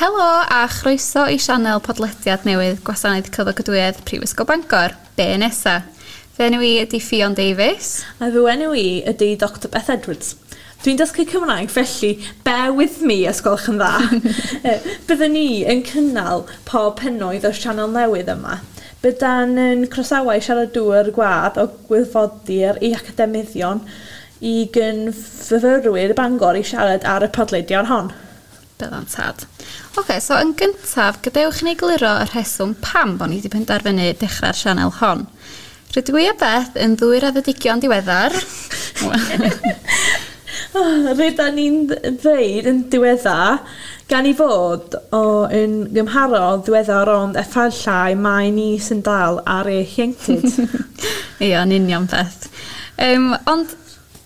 Helo a chroeso i sianel podlediad newydd Gwasanaeth Cyflogadwyedd Prifysgol Bangor, Be Nesa? Fy enw i ydi Ffion Davies. A fy enw i ydy Dr Beth Edwards. Dwi'n dysgu Cymraeg felly bear with me os gwelwch yn dda. Byddwn ni yn cynnal pob pennoedd o'r sianel newydd yma. Byddan yn croesawau siaradwyr gwadd o gwirfoddwyr i academyddion i gyn-fyfyrwyr Bangor i siarad ar y podlediad hon. Byddan tad. Oce, so yn gyntaf, gadewch i ni egluro y rheswm pam bo ni wedi penderfynu dechrau'r sianel hon. Rydw i a Beth yn ddwy raddedigion diweddar. Rydan ni'n ddeud yn diweddar gan i fod o yn gymharol ddiweddar ond efallai mai ni sy'n dal ar ei hienctid. Ia, yn union Beth. Ond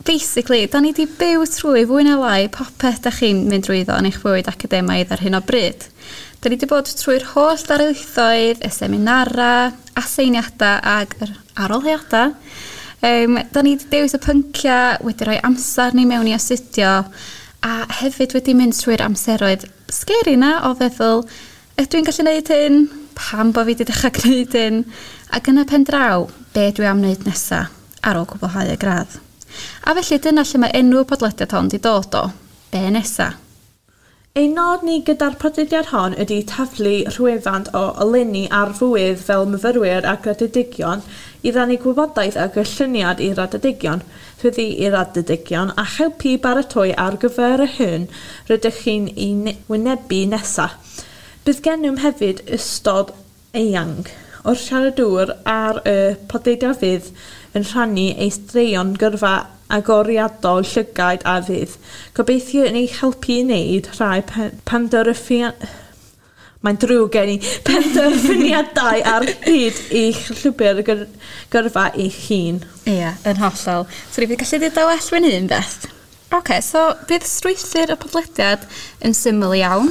basically, da ni 'di byw trwy fwy na lai popeth da chi'n mynd drwyddo yn eich bywyd academaidd ar hyn o bryd. Da ni 'di bod trwy'r holl darlithoedd, y seminara, aseiniadau ag yr arholiadau. Da ni 'di dewis y pyncia, wedi rhoi amser ni mewn i astudio, a hefyd wedi mynd trwy'r amseroedd scary na o feddwl, ydw i'n gallu neud hyn? Pam bo fi 'di dechrau gwneud hyn? Ac yn y pen draw, be dwi am wneud nesa ar ôl cwblhau y gradd? A felly dyna lle mae enw y podlediad hon 'di dod o, Be Nesa? Ein nod ni gyda'r podlediad hon ydy taflu rhywfaint o oleuni ar fywyd fel myfyrwyr a graddedigion i rannu gwybodaeth a gylluniad i raddedigion, swyddi i raddedigion a helpu baratoi ar gyfer yr hyn rydych chi'n ei wynebu nesaf. Bydd gennym hefyd ystod eang o'r siaradwyr ar y podlediad fydd yn rhannu eu straeon gyrfa agoriadol llygaid a fydd gobeithio yn eich helpu i wneud rhai mae'n drwg gen i penderfyniadau ar hyd eich llwybr gyrfa eich hun. Ia, yn hollol. So ni gallu dweud o well fy hun, Beth. Oce, so bydd strwythur y podlediad yn syml iawn.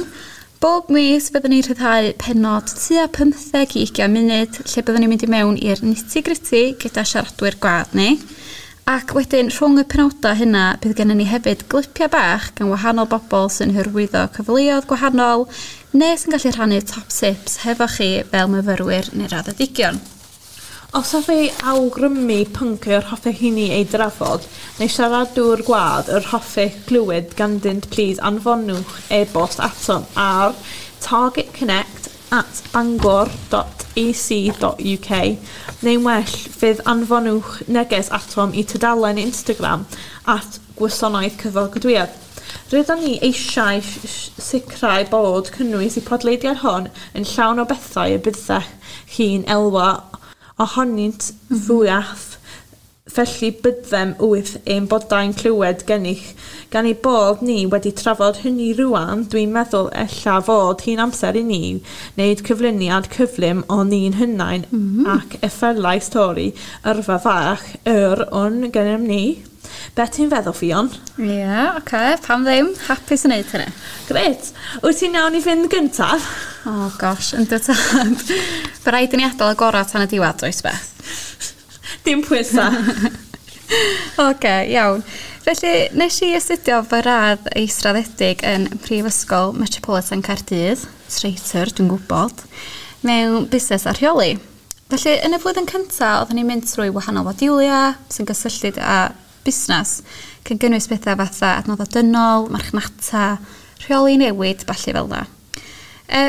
Bob mis byddwn ni'n rhyddhau pennod tua 15 i 20 munud lle byddwn ni'n mynd i mewn i'r nitty gritty gyda siaradwyr gwadd ni. Ac wedyn rhwng y penodau hynna bydd gennym ni hefyd glipiau bach gan wahanol bobl sy'n hyrwyddo cyfleoedd gwahanol neu sy'n gallu rhannu top tips hefo chi fel myfyrwyr neu raddedigion. Os hoffech awgrymu pwnc yr hoffech chi ni ei drafod neu siaradwr gwadd yr hoffech glywed ganddynt plîs anfonwch e-bost atom ar targetconnect@bangor.ac.uk neu'n well fydd anfonwch neges atom i tudalen Instagram @gwasanaeth cyflogadwyedd. Rydyn ni eisiau sicrhau bod cynnwys y podlediad hwn yn llawn o bethau y byddech chi'n elwa ohonynt fwyaf, felly byddem wrth ein boddau'n clywed gennych. Gan ei bod ni wedi trafod hynny rwan, dwi'n meddwl ella fod hi'n amser i ni wneud cyflwyniad cyflym o ni'n hunain ac efallai stori yrfa fach yr un gennym ni. Be ti'n feddwl, Ffion? Ie, yeah, oce, okay, pam ddim? Hapus yn neud hynny. Grêt. Wyt ti'n iawn i fynd gyntaf? Oh gosh, yndw tad. By raid i ni adael y gorau tan y diwedd, oes Beth? Dim pwysa. Oce, iawn. Felly, nes i astudio fy radd israddedig yn Prifysgol Metropolitan Caerdydd, traitor, dwi'n gwybod, mewn busnes a rheoli. Felly, yn y flwyddyn cyntaf, oeddwn i'n mynd trwy wahanol fodiwlia sy'n gysylltiad â busnes, cyn gynnwys pethau fatha adnoddau dynol, marchnata, rheoli newid, ballu fel 'na.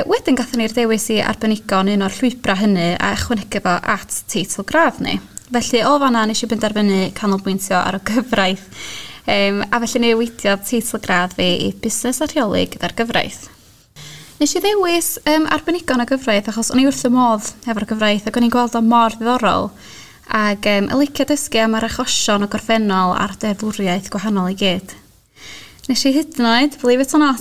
Wedyn gathon ni'r dewis i arbenigo yn un o'r llwybrau hynny a ychwanegu fo at teitl gradd ni. Felly o fanna nes i benderfynu canolbwyntio ar y gyfraith. A felly newidiodd teitl gradd fi i busnes a rheoli gyda'r gyfraith. Nes i ddewis arbenigo yn y gyfraith achos o'n i wrth y modd efo'r gyfraith ac o'n i'n gweld o mor ddiddorol ac yn licio dysgu am yr achosion o gorffennol a'r deddfwriaeth gwahanol i gyd. Nes i hyd yn oed, believe it or not,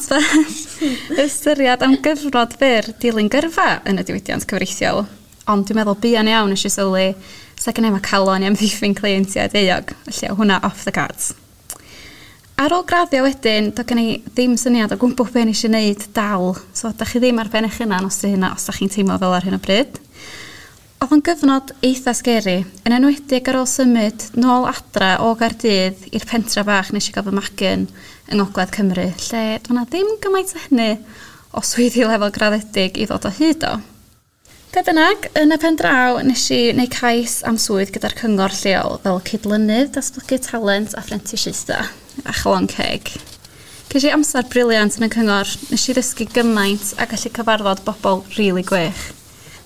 ystyried am gyfnod byr dilyn gyrfa yn y diwydiant cyfreithiol. Ond dwi'n meddwl buan iawn nes i sylwi sa gen i'm y calon i amddiffyn cleientiaid euog, felly o hwnna off the cards. Ar ôl graddio wedyn, doedd gen i ddim syniad o gwbl be nes i wneud dal. So, da chi ddim ar ben eich hunan os 'di hynna, os da chi'n teimlo fel ar hyn o bryd. Oedd o'n gyfnod eitha scary, yn enwedig ar ôl symud nôl adra o Gaerdydd i'r pentra bach nes i gael fy magu yn yng Ngogledd Cymru, lle doedd 'na ddim gymaint o hynny o swyddi lefel graddedig i ddod o hyd o. Be bynnag, yn y pen draw nes i wneud cais am swydd gyda'r cyngor lleol fel cydlynydd datblygu talent a phrentisiaethau, a chalon ceg. Ces i amser briliant yn y cyngor, nes i ddysgu gymaint a gallu cyfarfod bobl rili gwych.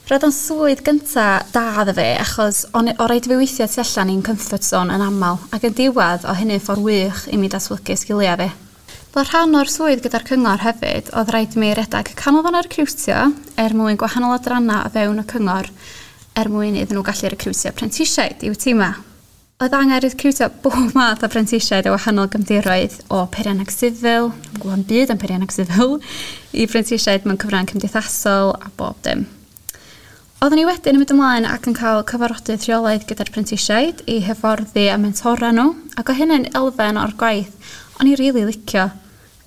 Roedd o'n swydd gynta da iddo fi achos o'n o raid i fi weithio tu allan i'n comfort zone yn amal ac yn diwedd o hynny'n ffordd wych i mi datblygu sgiliau fi. Fel rhan o'r swydd gyda'r cyngor hefyd, oedd rhaid i mi redag canolfan recriwtio er mwyn gwahanol adrannau o fewn y cyngor er mwyn iddyn nhw gallu recriwtio prentisiaid i'w tîma. Oedd angen recriwtio bob math o prentisiaid o wahanol gefndiroedd o peirianneg sifil, dwi'n gwybod byd am peirianneg sifil, i prentisiaid mewn cyfrang cymdeithasol a bob dim. Oeddwn i wedyn yn mynd ymlaen ac yn cael cyfarfodydd rheolaidd gyda'r prentisiaid i hyfforddi a mentora nhw, ac o hynny'n elfen o'r gwaith o'n i rili licio.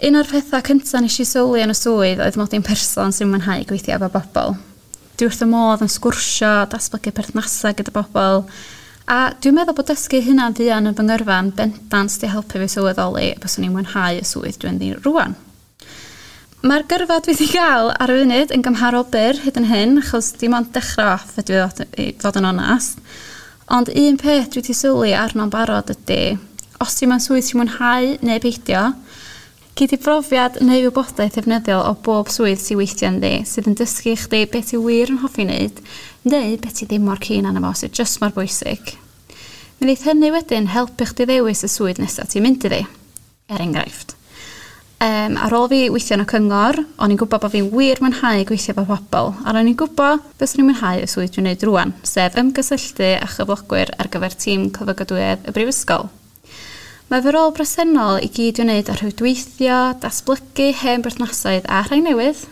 Un o'r pethau cynta nes i sylwi yn y swydd oedd mod i'n person sy'n mwynhau gweithio efo bobl. Dwi wrth y modd yn sgwrsio, datblygu perthnasau gyda bobl, a dwi'n meddwl bod dysgu hynna'n fuan yn fy ngyrfa'n bendant 'di helpu fi sylweddoli byswn i'n mwynhau y swydd dwi'n ddi rwan. Mae'r gyrfa dwi wedi gael ar y funud yn gymharol byr hyd yn hyn, achos dim ond dechrau off ydw i fod yn onast. Ond un peth dwi wedi sylwi arno'n barod ydy, os ti mewn swydd ti'n mwynhau neu beidio, gei di brofiad neu wybodaeth ddefnyddiol o bob swydd ti'n weithio ynddi, sydd yn dysgu chdi beth ti wir yn hoffi wneud, neu beth ti ddim mor keen arno fo, sydd jyst mor bwysig. Mi wneith hynny wedyn helpu chdi ddewis y swydd nesaf ti'n mynd iddi, er enghraifft. Ar ôl fi weithio yn y cyngor, o'n i'n gwybod bod fi'n wir mwynhau gweithio efo pobl, a o'n i'n gwybod beth o'n i'n mwynhau y swydd dwi'n neud rwan, sef ymgysylltu â chyflogwyr ar gyfer tîm cyflogadwyedd y brifysgol. Mae fy rôl bresennol i gyd i'w wneud â rhwydweithio, datblygu hen berthnasoedd a rhai newydd,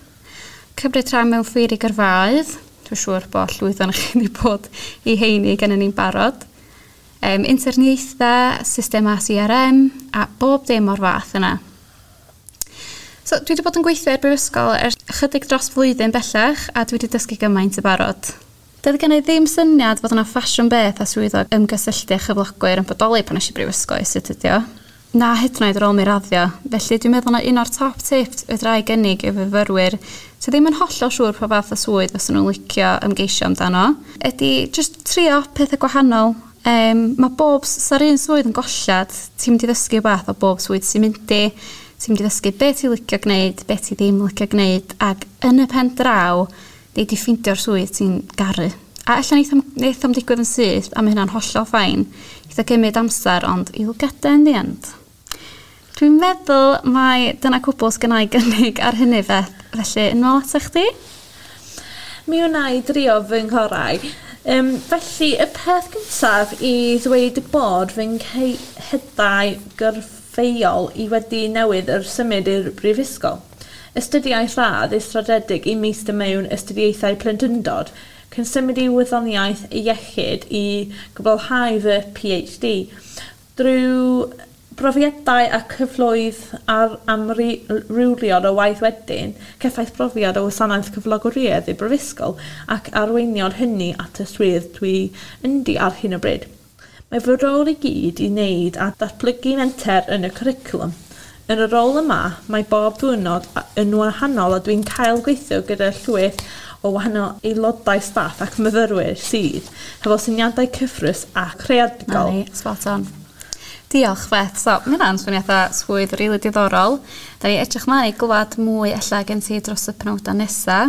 cymryd rhan mewn ffeiri gyrfaoedd, dwi'n siŵr bod llwyth ohonoch chi wedi bod i heini gan ni'n barod, interniaethau, systemau CRM a bob dim o'r fath yna. So, dwi wedi bod yn gweithio i'r brifysgol ers ychydig dros flwyddyn bellach a dwi wedi dysgu gymaint y barod. Doedd gen i ddim syniad fod yna ffasiwn beth a swyddog ymgysylltu â chyflogwyr yn bodoli pan es i brifysgol i astudio. Na hyd yn oed ar ôl mi raddio. Felly dwi'n meddwl na un o'r top tips fedra i gynnig i fyfyrwyr sydd ddim yn hollol siŵr pa fath o swydd fysa nhw'n licio ymgeisio amdano ydy jyst trio pethau gwahanol. Mae bob, sa'r un swydd yn gollad, ti'n mynd i ddysgu rhywbeth o bob swydd sy'n mynd i, ti'n mynd i ddysgu be ti'n licio gwneud, be ti ddim licio gwneud, ac yn y pen draw, nei di ffeindio'r swydd ti'n garu. A ella neith o'm digwydd yn syth, a mae hynna'n hollol fine. Neith o gymryd amser, ond you'll get there in the end. Dwi'n meddwl mai dyna cwbl sgynna i gynnig ar hynny Beth, felly yn ôl ata chdi? Mi wna i drio fy nghorau. Felly, y peth cyntaf i ddweud bod fy nghyhydau gyrfeuol i wedi newydd yr symud i'r brifysgol. Astudiaeth radd israddedig i meistr mewn astudiaethau plentyndod, cyn symud i wyddoniaeth iechyd i gwblhau fy PhD. Drwy brofiadau a cyfloedd ar amrywiol o waith wedyn, cefais brofiad o wasanaeth cyflogwriaeth i brifysgol ac arweiniodd hynny at y swydd dwi ynddi ar hyn o bryd. Mae fy rôl i gyd i wneud a datblygu menter yn y cwricwlwm. Yn y rôl yma, mae bob diwrnod yn wahanol a dwi'n cael gweithio gyda llwyth o wahanol aelodau staff ac myfyrwyr sydd hefo syniadau cyffrous a creadigol. Na ni, spot on. Diolch Beth. So, mae hynna'n swnio fatha swydd rili diddorol. Da ni edrych mlaen i glwad mwy ella gen ti dros y penawdau nesa.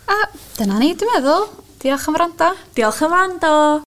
A dyna ni, dwi'n meddwl. Diolch am wrando. Diolch am wrando.